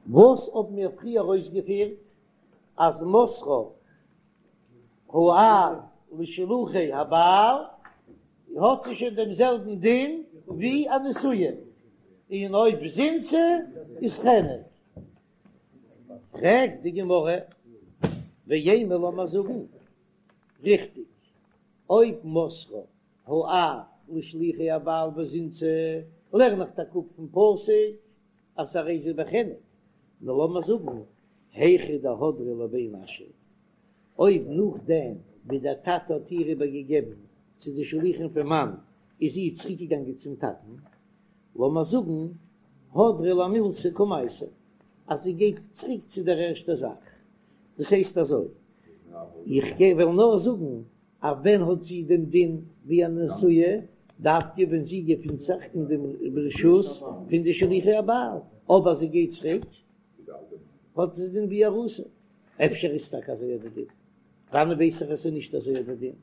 וואס האבן מיר פריער אויסגעפירט אז מסרה האב לשלוחי הבעל האט זי שוין דעם זעלבן דין ווי א נשואה, און אויב זינתה איז חנק. פרעגט די גמרא, ואימא לאמיר זאגן ריכטיג, אויב מסרה האב לשלוחי הבעל וזינתה לערן איך טאקע אפ פון פסוק אז הרי זו בחנק, נאר לאמיר זאגן היכא דהדרה לבי נשא, אויב נאכדעם ווי דער טאטע האט איר איבערגעגעבן צו די שלוחים פון מאן איז זי צוריקגעגאנגען צום טאטן, לאמיר זאגן הדרה למילתא קמייתא, אז זי גייט צוריק צו דער ערשטער זאך, דאס הייסט אזוי, איך גיי וועל נאר זאגן אז ווען האט זי דעם דין ווי א נשואה, דווקא ווען זי געפינט זיך אין דעם רשות פון די שלוחי הבעל, אבער זי גייט צוריק האט זי דין ווי ארוסה, אפשר איז טאקע אזוי דער דין, וואנען ווייס איך אז ס'איז נישט אזוי דער דין?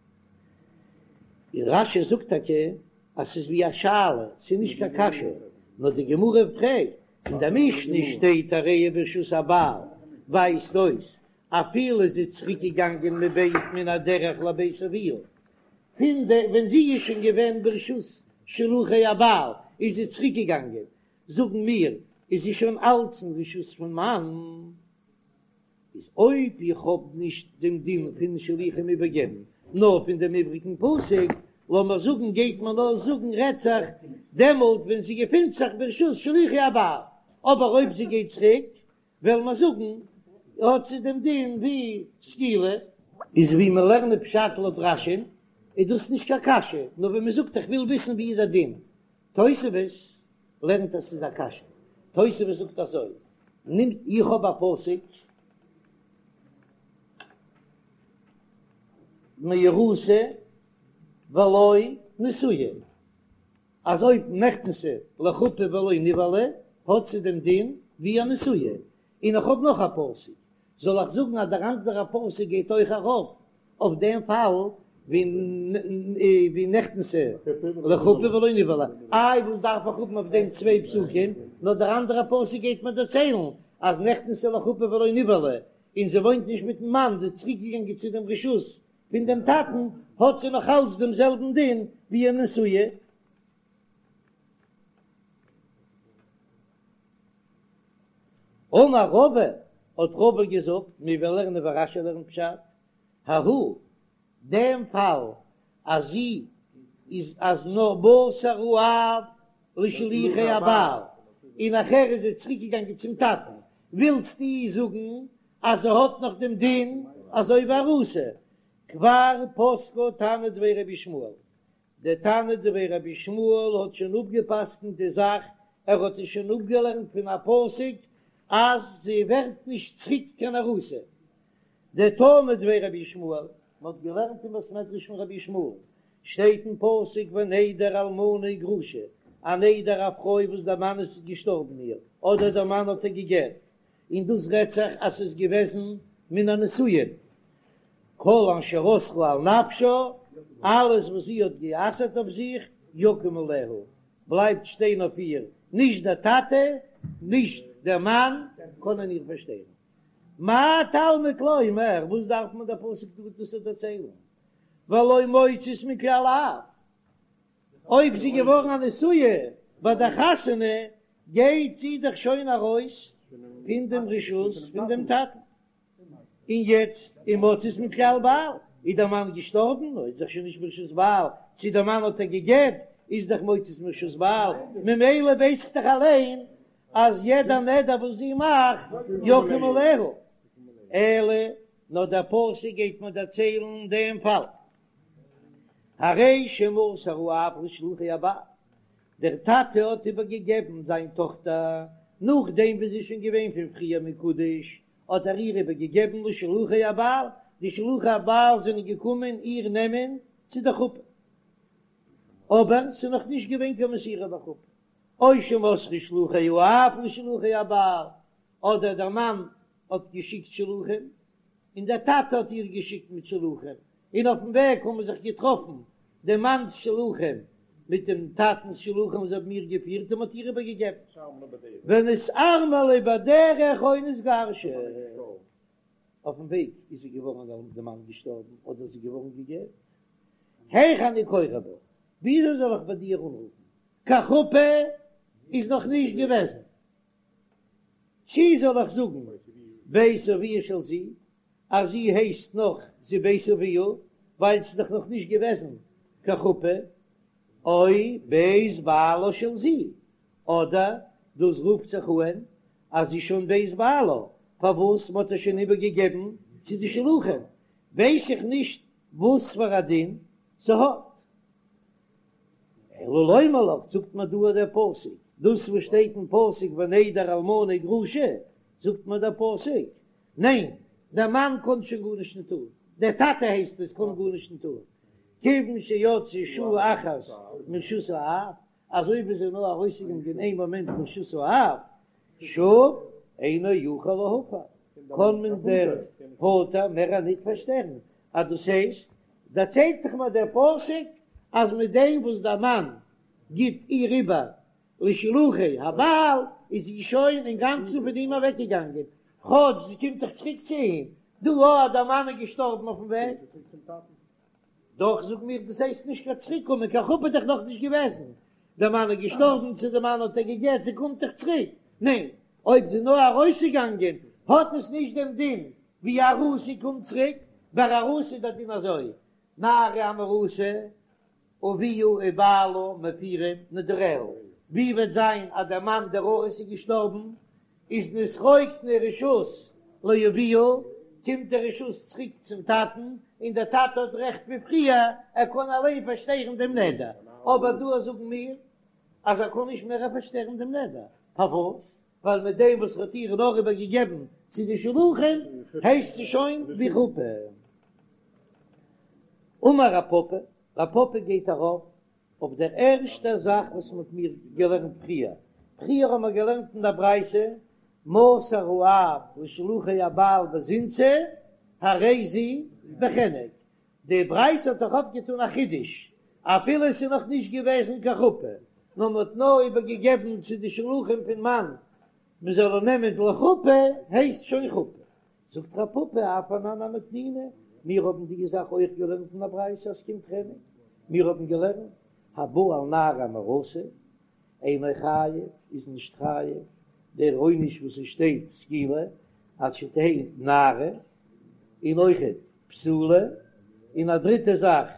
און רש"י זאגט טאקע אז ס'איז ווי א שאלה, ס'איז נישט קיין קשיא, נאר די גמרא פרעגט, אין די משנה שטייט הרי היא ברשות הבעל, ווייזט אויס אפילו זי איז צוריק געגאנגען מבית מן הדרך לבית אביה, פון די ווען זי איז שוין געווען ברשות שלוחי הבעל איז זי צוריק געגאנגען, זאגן מיר איז זי שוין אלץ אין רשות פון מאן, איז אויב איך האב נישט דעם דין פון שלוחים איבערגעבן נאר פון דעם איבריגן פסוק, לאמיר זאגן גייט מען נאר זאגן רעדט זיך דעמאלט ווען זי געפינט זיך ברשות שלוחי הבעל, אבער אויב זי גייט צוריק וועלן מיר זאגן האט זי דעם דין ווי סקילה. איז ווי מיר לערנען פשט לויט רש"י'ן איז דאס נישט קיין קשיא, נאר ווען מען זאגט איך וויל וויסן ווי איז דער דין, תוספות לערנט אז ס'איז א קשיא, תוספות זאגט אזוי, נעמט איך האב א פסוק מאורסה ולא נשואה, אז אויב נכנסה לחופה ולא נבעלה האט זי דעם דין ווי א נשואה, און איך האב נאך א פסוק, זאל איך זאגן אז דער אנדערע פסוק גייט אויך ארויף אויף דעם פאל ווי נכנסה לחופה ולא נבעלה, איי וואס דארף איך האבן אויף דעם צוויי פסוקים, נאר דער אנדערע פסוק גייט מיר דערציילן אז נכנסה לחופה ולא נבעלה, און זי וואוינט נישט מיטן מאן, זי איז צוריק געגאנגען צו דעם רשות פון דעם טאטן, האט זי נאך אלץ דעם זעלבן דין ווי א נשואה. אמר רבא, האט רבא געזאגט, מיר וועלן לערנען ווי רש"י לערנט פשט, ההוא, דעם פאל אז זי איז אז נאר מסר האב לשלוחי הבעל, און נאכער איז זי צוריק געגאנגען צום טאטן, ווילסטו זאגן אז זי האט נאך דעם דין אזוי ווי ארוסה? כבר פסקה תנא דבי רבי ישמעאל, דער תנא דבי רבי ישמעאל האט שוין אפגע'פסק'נט די זאך, ער האט עס שוין אפגעלערנט פון א פסוק אז זי ווערט נישט צוריק קיין ארוסה. דתנא דבי רבי ישמעאל, מען האט געלערנט אין בית מדרש פון רבי ישמעאל, שטייט אין פסוק ונדר אלמנה וגרושה, א נדר א פרוי וואס דער מאן איז געשטארבן איר, אדער דער מאן האט איר גע'גט, און דאס רעדט זיך אז ס'איז געוועזן מן הנישואין, כל אשר אסרה על נפשה, אלעס וואס זי האט גע'אסר'ט אויף זיך, יקום עליה, בלייבט שטיין אויף איר, נישט דער טאטע, נישט דער מאן, קענען איר פארשטערן. מה תלמוד לומר, וואס דארף מען דער פסוק דא דאס דערציילן? והלא מוצאת מכלל אב, אויב זי געווארן א נשואה ביי דער חתונה, גייט זי דאך שוין ארויס פון דעם רשות פון דעם טאטן. און יעצט ומוצאת מכלל בעל, איז דער מאן געשטארבן, איז דאך שוין נישט ברשות בעל, צו דער מאן האט איר גע'גט, איז דאך מוצאת מרשות בעל, ממילא ווייס איך דאך אליין אז יעדע נדר וואס זי מאכט יקום עליה, אלא נאר דער פסוק גייט מיר דערציילן דעם פאל, הרי שמסר האב לשלוחי הבעל, דער טאטע האט איבערגעגעבן זיין טאכטער נאכדעם ווי זי איז שוין געווען פון פריער מקודש, האט ער איר איבערגעגעבן לשלוחי הבעל, די שלוחי הבעל זענען געקומען איר נעמען צו די חופה, אבער ס'איז נאך נישט געווען קיין מסירה לחופה, או שמסרו שלוחי האב לשלוחי הבעל, אדער דער מאן האט געשיקט שלוחים, און דער טאטע האט איר געשיקט מיט שלוחים, און אויפן וועג האבן זיך געטראפן דעם מאנ'ס שלוחים. מיט דעם טאטנ'ס שלוחים זיי האבן איר געפירט און מ'האט איר איבערגעגעבן. ונתארמלה בדרך או נתגרשה. אויפן וועג איז זי געווארן דער מאן געשטארבן אדער זי געווארן גע'גט. היאך אני קורא בה, וויאזוי זאל איך ביי דיר אנרופן? קיין חופה איז נאך נישט געוועזן. צי זאל איך זאגן בית אביה של זו, אז זי הייסט נאך זי בית אביה, ווייל ס'איז דאך נאך נישט געוועזן קיין חופה, או בית בעלה של זו, אדער דאס רופט זיך אהן אז זי שוין בית בעלה, פארוואס מ'האט איר שוין איבערגעגעבן צו די שלוחים, ווייס איך נישט וואס פאר א דין ס'האט. אלא לומר לך, זאגט מיר דא דער פסוק, דאס וואס שטייט אין פסוק ונדר אלמנה וגרושה, זאגט מיר דער פסוק, ניין, דער מאן קען שוין גארנישט נישט טון, דער טאטע הייסט עס קען גארנישט נישט טון, כיוון שיצאה שעה אחת מרשות האב, אזוי ווי זי איז נאר ארויסגעגאנגען איין מאמענט מרשות האב, שוב אינו יכול להפר, קען מען דער פאטער מער ניט פארשטערן, אז דאס הייסט, דערציילט דאך מיר דער פסוק אז מיט דעם וואס דער מאן גיט איר איבער לשלוחי הבעל איז זי שוין אינגאנצן פון אים אוועקגעגאנגען, כאטש זי קומט דאך צוריק צו אים, דא אז דער מאן איז געשטארבן אויפן וועג. דאך זאג מיר דאס הייסט נישט קיין צוריק קומען, קיין חופה איז דאך נאך נישט געוועזן, דער מאן איז געשטארבן צו דער מאן האט איר גע'גט, זי קומט דאך צוריק, ניין, אויב זי איז נאר ארויסגעגאנגען האט עס נישט דעם דין ווי ארוסה קומט צוריק, ביי ארוסה איז דער דין אזוי, נערה המאורסה אביה ובעלה מפירים נדריה, ווי וועט זיין אז דער מאן דער ארוס איז געשטארבן, איז נתרוקנה רשות לאביה, קומט די רשות צוריק צום טאטן, און דער טאטע האט רעכט ווי פריער, ער קען אליין פארשטערן דעם נדר, אבער דא זאגן מיר אז ער קען נישט מער פארשטערן דעם נדר, פארוואס? ווייל מיט דעם וואס ער האט איר נאר איבער געגעבן צו די שלוחים הייסט זי שוין ווי חופה. אמר רב פפא, רב פפא גייט ארויף אויף דער ערשטער זאך וואס מ'האט מיר געלערנט פריער, פריער האבן מיר געלערנט אין דער ברייתא, מסר האב לשלוחי הבעל וזינתה הרי זו בחנק, די ברייתא האט דאך אויפגעטון א חידוש, אפילו עס איז נאך נישט געוועזן קיין חופה, נאר מען האט נאר איבערגעגעבן צו די שלוחים פון מאן מען זאל איר נעמען לחופה, הייסט שוין חופה. זאגט רב פפא אף אנן נמי תנינא, מיר האבן די זאך אויך געלערנט אין א ברייתא אז ס'קומט חנק, מיר האבן געלערנט הבא על נערה המאורסה אינו חייב איז נישט חייב דער עונש וואס עס שטייט סקילה עד שתהא נערה און אויכעט בתולה און א דריטע זאך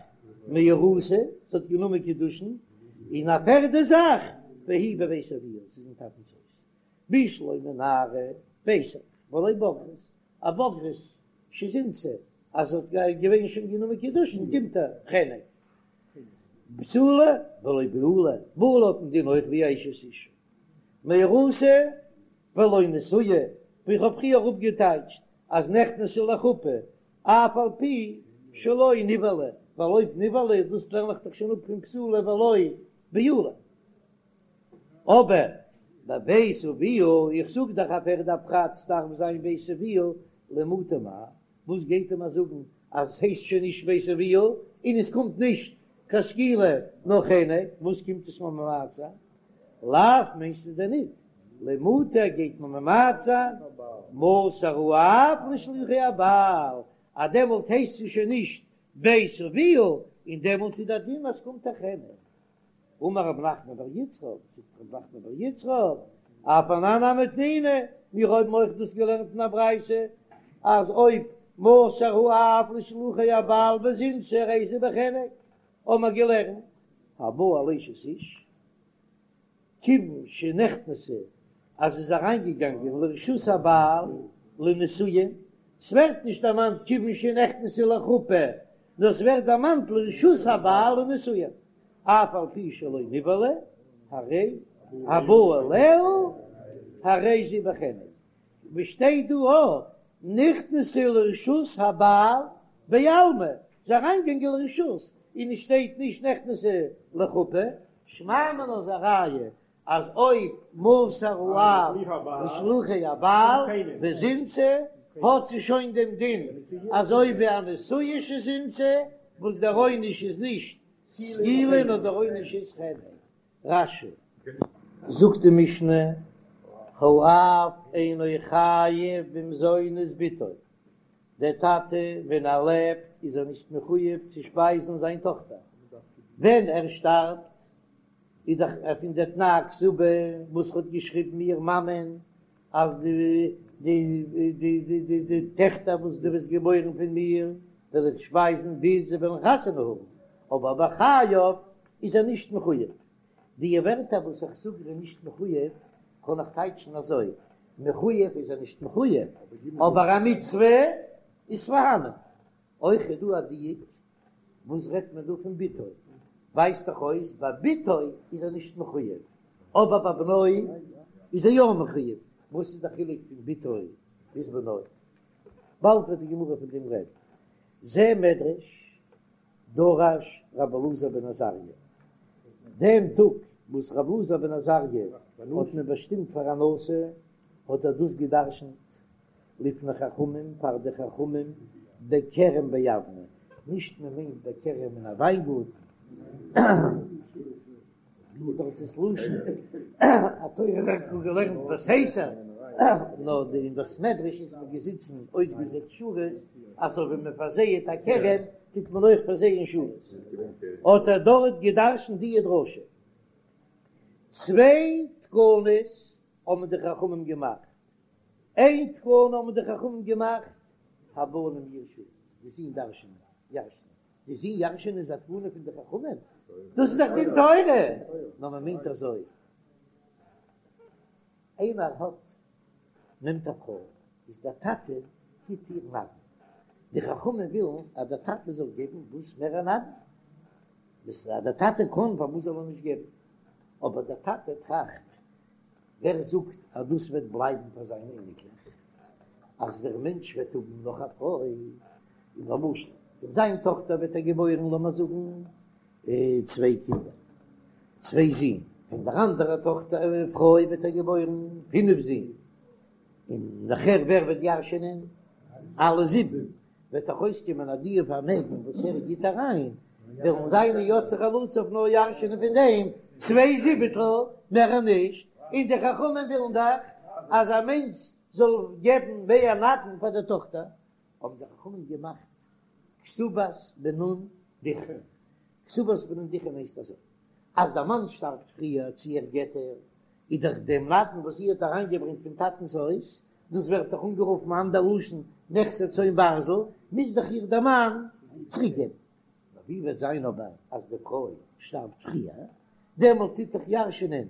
מאורסה זי האט גענומען קידושין און א פערדע זאך והיא בבית אביה ס'איז אין טאטנ'ס הויז בשלמא נערה ווייס איך ולא בוגרת, א בוגרת שזינתה אז זי האט געווען שוין גענומען קידושין קומט איר חנק, בתולה ולא בעולה, בעולה האט א דין אויך ווי אשת איש, מאורסה ולא נשואה, ווי איך האב פריער אפגעטייטשט אז נכנסה לחופה אף על פי שלא נבעלה, ווייל אויב נבעלה דאס לערן איך דאך שוין אפ פון בתולה ולא בעולה. אבער בבית אביה, איך זאג דאך א פערדע פרט ס'דארף זיין בית אביה למעוטי מאי, וואס גייט ער מיר זאגן אז עס הייסט שוין נישט בית אביה און עס קומט נישט קיין סקילה נאר חנק, וואס קומט עס מיר ממעט זיין? לאו מיינסטו דען ניט למעוטי גייט מען ממעט זיין מסר האב לשלוחי הבעל אז דעמאלט הייסט עס שוין נישט בית אביה און דעמאלט איז דער דין אז ס'קומט א חנק. אמר רב נחמן בר יצחק, זאגט רב נחמן בר יצחק, אף אנן נמי תנינא, מיר האבן אויך דאס געלערנט אין א ברייתא, אז אויב מסר האב לשלוחי הבעל וזינתה הרי זו בחנק, האבן מיר געלערנט, הבא על אשת איש, כיוון שנכנסה אז זי איז אריינגעגאנגען לרשות הבעל לנישואין, ס'ווערט נישט דערמאנט כיוון שנכנסה לחופה, נאר ס'ווערט דערמאנט לרשות הבעל לנישואין, אף על פי שלא נבעלה, הרי הבא עליה הרי זו בחנק, ווי שטייט דא אויך נכנסה לרשות הבעל בעלמא, זי איז אריינגעגאנגען לרשות, און עס שטייט נישט נכנסה לחופה, שמע מינה איז א ראיה אז אויב מסר האב לשלוחי הבעל וזינתה האט זי שוין דעם דין אזוי ווי א נשואה שזינתה וואס דער עונש איז נישט. סקילה נאר דער עונש איז חנק. רש"י. זאגט די משנה, האב אינו חייב במזונות בתו, דער טאטע ווען ער לעבט איז ער נישט מחויב צו שפייזן זיין טאכטער, ווען ער שטארבט איז דאך פון די תנאי כתובה וואס האט געשריבן איר מאמען אז די די די די די די טעכטער וואס דו וועסט געבוירן פון מיר וועל איך שפייזן ביז זיי וועלן חתונה האבן, אבער בחייו איז ער נישט מחויב. די ווערטער וואס איך זאג ער איז נישט מחויב קען איך טייטשן אזוי, מחויב איז ער נישט מחויב, אבער א מצוה איז פארהאנען. אויך איז דא א דיוק, וואס רעדט מען דא פון בתו? ווייזט דאך אויס ביי בתו איז ער נישט מחויב, אבער ביי בנו איז ער יא מחויב. וואס איז די חילוק פון בתו ביז בנו? באלד וועט די גמרא פון דעם רעדן. זה מדרש דרש רבי אלעזר בן עזריה, דעם טאג וואס רבי אלעזר בן עזריה האט מען באשטימט פאר א נשיא, האט ער דאס גע'דרש'נט לפני חכמים, פאר די חכמים, בכרם ביבנה, נישט מען מיינט בכרם אין א וויינגארטן, איז דאך דאס לשון התורה ווערט נאר געלערנט בסתר, נאר די אין בית מדרש איז מען געזיצן אויסגעזעצט שורות, אזוי ווי מען פארזייעט א כרם טוט מען אויך פארזייען שורות, האט ער דארט געדרשנט די דרשה. צוויי תקנות האבן די חכמים געמאכט, איין תקנה האבן די חכמים געמאכט, הבנים יירשו, די זין דרש'נען, ירש'נען. די זין ירש'ענען איז א תקנה פון די חכמים? דאס איז דאך דין תורה! נאר מען מיינט אזוי, איינער האט נעמט א פרוי, איז דער טאטע גיט איר נדן, די חכמים ווילן אז דער טאטע זאל געבן וואס מער א נדן, אז דער טאטע קען פארוואס זאל ער נישט געבן, אבער דער טאטע טראכט ווער זאגט אז דאס וועט בלייבן פאר זיינע אייניקלעך? אז דער מענטש וועט האבן נאך א פרוי, און למשל פון זיין טאכטער וועט ער געבוירן לאמיר זאגן צוויי קינדער, צוויי זין, פון דער אנדערער טאכטער פרוי וועט ער געבוירן פינף זין, און נאכער ווער וועט ירש'ענען? אלע זיבן, וועט דאך אויסקומען אז די פארמעגן וואס ער גיט אריין, וועלן זיינע יוצאי חלציו נאר ירש'ענען פון דעם צוויי זיבעטל, מער נישט, און די חכמים ווילן דאך אז א מענטש זאל געבן מער נדן פאר די טאכטער, האבן די חכמים געמאכט כתובת בנין דכרין, כתובת בנין דכרין הייסט אזוי, אז דער מאן שטארבט פריער צו ער גט איר, איז דאך דעם נדן וואס זי האט אריינגעברענגט פון טאטנ'ס הויז, דאס ווערט דאך אנגערופן אנדער לשון נכסי צאן ברזל, מוז דאך איר דער מאן צוריק געבן. נאר ווי וועט זיין אבער אז די פרוי שטארבט פריער, דעמאלט טוט דאך ירש'נען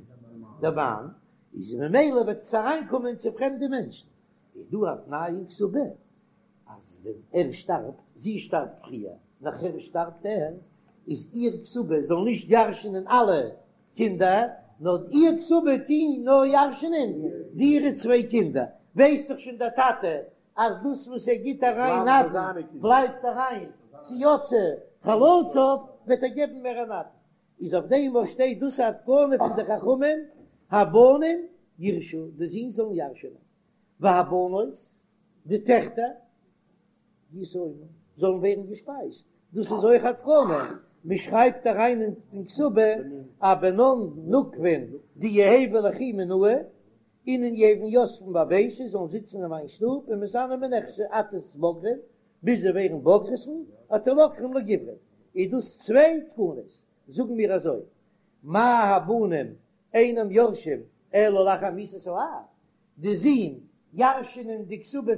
דער מאן, איז ממילא וועט עס אריינקומען צו פרעמדע מענטשן, איז דא א תנאי אין כתובה אז ווען ער שטארבט, זי שטארבט פריער, נאכער שטארבט ער, איז איר כתובה זאל נישט ירש'נען אלע קינדער, נאר איר כתובה טוהן נאר ירש'נען די אירע צוויי קינדער, ווייסט דאך שוין דער טאטע אז דאס וואס ער גיט אריין נדן בלייבט אריין צו יוצאי חלציו, וועט ער געבן מער א נדן, איז אויף דעם וואס שטייט דאס א תקנה פון די חכמים, הבנים יירשו, די זין זאלן ירש'נען, והבנות, די טעכטער, ישאונו, זאלן ווערן געשפייזט, דאס איז אויך א תקנה, מען שרייבט אריין אין כתובה א בנן נוקבין דיהוו ליכי מינאי, אינון יהוון יתבן בביתי זאלן זיצן אין מיין שטוב ומתזנן מנכסי עד תתבגרן, ביז זיי ווערן בוגרת'ן, עד תלקחן לגוברין, איז דאס צוויי תקנות, זאגן מיר אזוי, מה הבנים אינם יורשים אלא לאחר מיתת האב, די זין ירש'נען די כתובה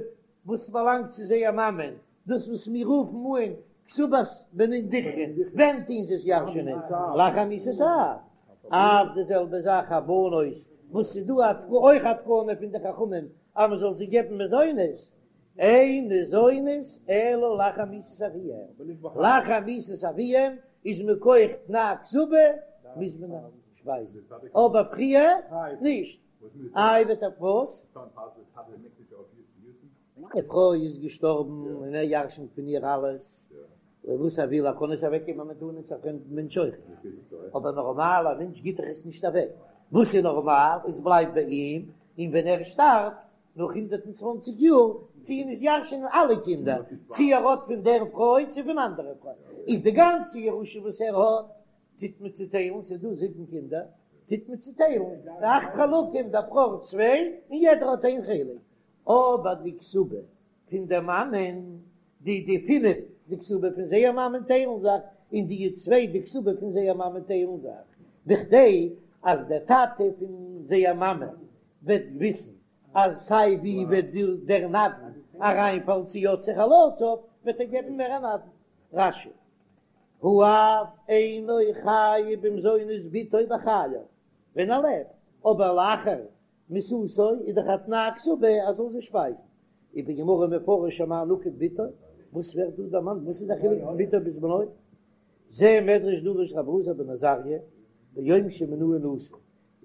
וואס באלאנגט צו זייער מאמען, דאס וואס מיר רופן אן כתובת בנין דכרין, ווען טוהן זיי עס ירש'נען? לאחר מיתת האב. אף די זעלבע זאך הבנות, וואס ס'איז דא אויך א תקנה פון די חכמים אז מ'זאל זיי געבן מזונות, אין ניזונות אלא לאחר מיתת אביהם, לאחר מיתת אביהם איז מכח תנאי כתובה מוז מען שפייזן, אבער פריער נישט. איי וועט ער וואס? די פרוי איז געשטארבן און ער ירשנט פון איר אלעס וואס ער וויל, ער קען עס אוועק געבן א מתנה צו א פרעמדן מענטש אויך, אבער נארמאל א מענטש גיט דאך עס נישט אוועק, וואס איז נארמאל עס בלייבט ביי אים, און ווען ער שטארבט נאך 120 יאר טוען עס ירש'נען אלע קינדער, צו ער האט פון דער פרוי צו פון אנדערע פרוי, איז די גאנצע ירושה וואס ער האט. טוט מען צוטיילן, ס'איז דא זיבן קינדער, טוט מען צוטיילן אכט חלקים, דער בכור צוויי און יעדער האט איין חלק, אבער די כתובה פון דער מאמען, די די פינף די כתובה פון זייער מאמען טיילן זיך, און די צוויי די כתובה פון זייער מאמען טיילן זיך, בכדי אז דער טאטע פון זייער מאמע וועט וויסן אז סיי ווי וועט דער נדן אריינפאלן צו יוצאי חלציו, וועט ער געבן מער א נדן. רש"י, האב אינו חייב במזונות בתו בחייו, ווען ער לעבט, אבער לאחר מיתתו איז דאך א תנאי כתובה אז זאל זי שפייזן. ובגמרא מפרש אמאי נקט בתו, וואס ווערט דא דערמאנט? וואס איז דער חילוק פון בתו ביז בנו? זה מדרש דרש רבי אלעזר בן עזריה ביום שמינוהו נשיא.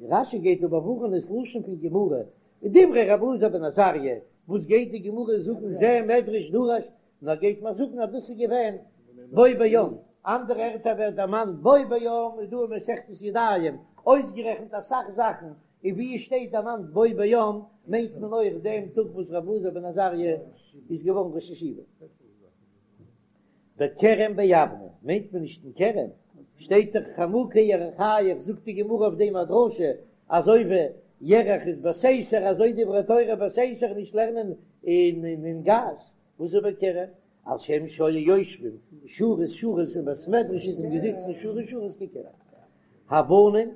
און רש"י גייט דא באווארענען ס'לשון פון גמרא, דברי רבי אלעזר בן עזריה, וואס גייט די גמרא זאגן זה מדרש דרש, נאר גייט מען זאגן אז דאס איז געווען בו ביום, אנדערע ערטער ווערט דערמאנט בו ביום איז דא אין מסכת ידיים אויסגערעכנט אסאך זאכן, און ווי עס שטייט דערמאנט בו ביום מיינט מען אויך דעם טאג וואס רבי אלעזר בן עזריה איז געווארן ראש ישיבה. בכרם ביבנה מיינט מען נישט אין כרם, שטייט דאך חמוקי ירכיך, זאגט די גמרא אויף דעם א דרשה, אזוי ווי ירך איז בסתר אזוי דברי תורה בסתר נישט לערנען אין גאס, וואס איז בכרם? על שם שהיו יושבים שורות שורות אין בית מדרש איז מען געזיצן שורות שורות ככרם. הבנים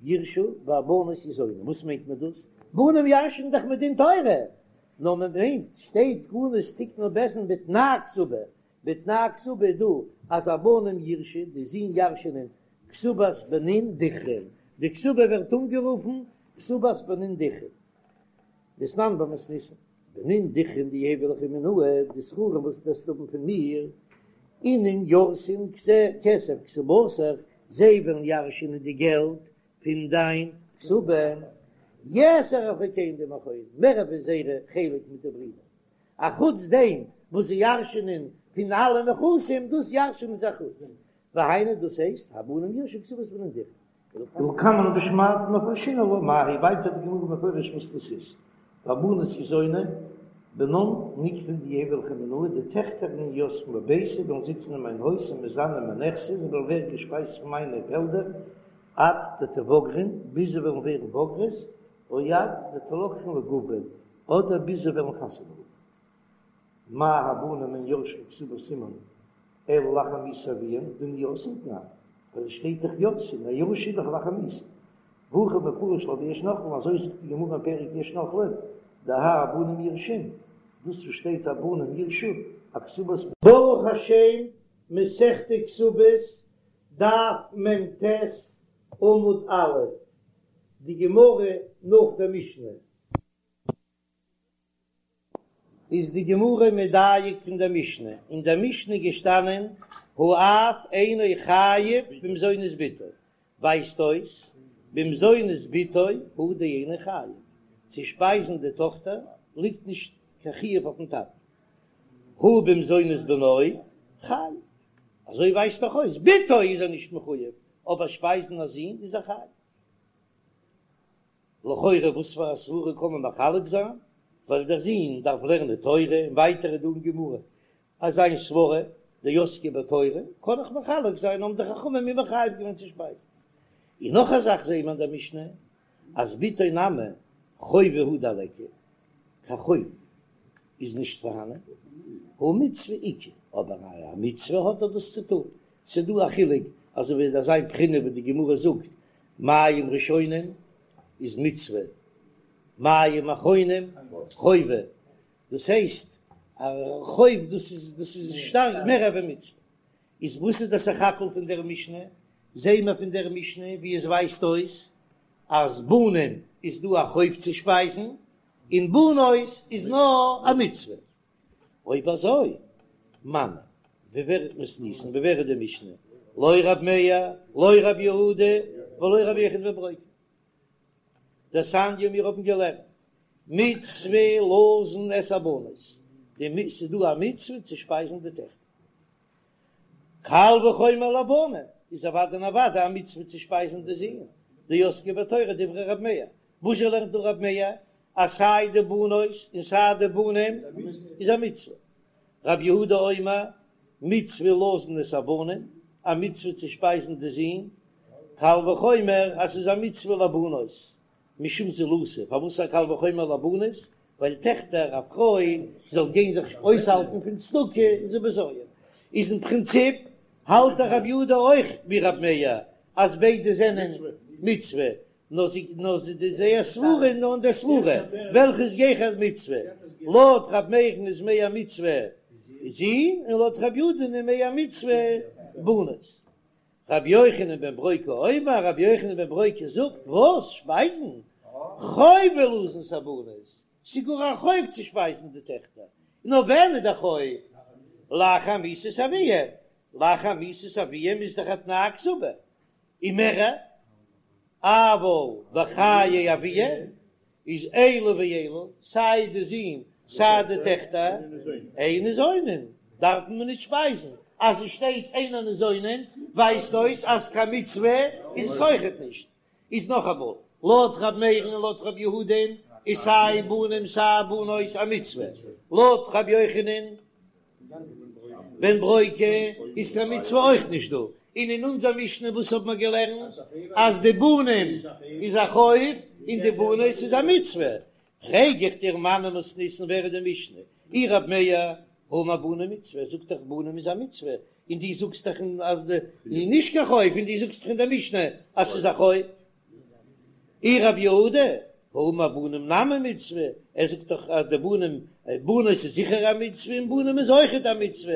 יירשו והבנות יזונו, וואס מיינט מען דאס? בנים ירש'ן דאך מדין תורה, נאר מען מיינט שטייט תקנות תיקנו בית דין בתנאי כתובה, בתנאי כתובה איז דא אז הבנים יירשו, די זין ירש'נען כתובת בנין דכרין, די כתובה ווערט אנגערופן כתובת בנין דכרין, דתנן במתניתין, בנין דכרין דיהיבו ליכי מינאי, די זכרים וואס וועסט האבן פון מיר, אינון ירתון כסף כתובתיך, זיי וועלן ירש'נען די געלט פון דיין כתובה, יתר על חולקיהון דעם אחהון, מער ווי זייערע חלק מיט די ברידער, אחוץ דעם וואס זיי ירש'נען פון אלע נכסים, דאס ירש'נען זיי אחוץ, והיינו דאס הייסט הבנים יירשו כתובת בנין דכרין. ולקמן בשמעתין מפרשינן לה מאי היא, ווייטער די גמרא מפרש וואס דאס איז, והבנות יזונו, בנן נוקפין דיהיבו ליכי מינאי, די טעכטער אינון יתבן בביתי וועלן זיצן אין מיין הויז ומזדנן מנכסי, זיי וועלן ווערן געשפייזט פון מיינע פעלדער, עד דתבגרן, ביז זיי וועלן ווערן בוגרות, או עד דתלקחן לגוברין, אדער ביז זיי וועלן חתונה האבן. מה הבנים אין יורשין כתובת אמן אלא לאחר מיתת אביהם דנין יורשין תנן, ווייל עס שטייט דאך יורשין, א ירושה איז דאך לאחר מיתה. והכי מפרש לה ביש נוחלין, אזוי זאגט די גמרא אין פרק יש נוחלין, דהאי הבנים יירשון, דאס וואס שטייט הבנים יירשו, אכתובת. ברוך השם, מסכת כתובות, דף מ"ט, עמוד א', די גמרא נאך דער משנה. איז די גמרא מדייק פון דער משנה, אין דער משנה איז געשטאנען האב אינו חייב במזונות בתו, ווייזט אויס במזונות בתו הוא דאינו חייב, צו שפייזן די טאכטער ליגט נישט קיין חיוב אויפן טאטן, הא במזונות בנו חייב, אזוי ווייזט דאך אויס בתו איז ער נישט מחויב, אבער שפייזן א זון איז ער חייב. לכאורה וואס פאר א סברה קען מען מחלק זיין, ווייל דער זון דארף לערנען תורה, און ווייטער איז דא אין גמרא אז זיין סברה דעסקי בתורה, קען איך מחלק זיין, האבן די חכמים אים מחייב געווען צו שפייזן. און נאך א זאך זעהן מיר אין דער משנה אז בתו נמי חובה הוא דליכא, קיין חוב איז נישט פארהאנען, הא מצוה איכא, אבער א מצוה האט ער דאס צו טון, ס'דא א חילוק אזוי ווי אזא בחינה וואס די גמרא זאגט מים ראשונים איז מצוה, מים אחרונים חובה, דאס הייסט א חוב דאס איז דאס איז שטארק מער ווי מצוה, איז וואס איז דער סך הכל פון דער משנה? זעהן מיר פון דער משנה ווי עס ווייזט אויס אז בנים איז דא א חוב צו שפייזן און בנות איז נאר א מצוה. אויב אזוי, מני, ווי ווער מתניתין, ווי ווער איז די משנה? לא רב מאיר, לא רב יהודה, ולא רבי יוחנן בן ברוקה. דתניא מיר האבן געלערנט, מצוה לזון את הבנות, די ס'איז דא א מצוה צו שפייזן די טעכטער. קל וחומר לבנים, איז אוודאי און אוודאי א מצוה צו שפייזן די זין, דעסקי בתורה דברי רב מאיר, וואזשע לערנט דא רב מאיר אז סיי די בנות און סיי די בנים איז א מצוה? רב יהודה אומר מצוה לזון את הבנים. א מצוה צו שפייזן די זין, קל וחומר אז ס'איז א מצוה לבנות, משום זילותא, פארוואס א קל וחומר לבנות? ווייל טעכטער, א פרוי זאל גיין זיך אויסהאלטן פון צדקה איז א בזיון, איז אין פרינציפ האלט דאך רבי יהודה אויך ווי רבי מאיר אז ביידע זענען מצוה, נאר זי נאר זי די זייער סברה נאר אין דער סברה וועלכע איז גיכער מצוה, לויט רבי מאיר'ן איז מער מצוה זין און לויט רבי יהודה'ן איז מער מצוה בנות. רבי יוחנן בן ברוקה אומר, רבי יוחנן בן ברוקה זאגט, וואס? שפייזן? חובה לזון את הבנות, ס'איז גאר א חוב צו שפייזן די טעכטער, נאר ווען איז דער חוב? לאחר מיתת אביהם, לאחר מיתת אביהם איז דאך א תנאי הכתובה, און מער, אבל בחיי אביהם איז אלו ואלו, סיי די זין סיי די טעכטער, אין ניזונין, דארף מען נישט שפייזן, אז עס שטייט אינן ניזונין ווייזט אויס אז קיין מצוה איז עס אויכעט נישט. איז נאכאמאל, לויט ר' מאיר'ן און לויט ר' יהודה'ן איז סיי בנים סיי בנות א מצוה, לויט ר' יוחנן בן ברוקה איז קיין מצוה אויך נישט דא, און אין אונזער משנה וואס האט מען געלערנט אז די בנים איז א חוב און די בנות איז א מצוה, פרעג איך דיר מני מתניתין ווער איז די משנה? אי רב מאיר האמר בנים מצוה, ער זאגט דאך בנים איז א מצוה, און דו זאגסט דאך אז די איז נישט קיין חוב, און דו זאגסט דאך אין די משנה אז ס'איז א חוב. אי רב יהודה האמר בנים נמי מצוה, ער זאגט דאך אז די בנים, בנות איז זיכער א מצוה און בנים איז אויכעט א מצוה,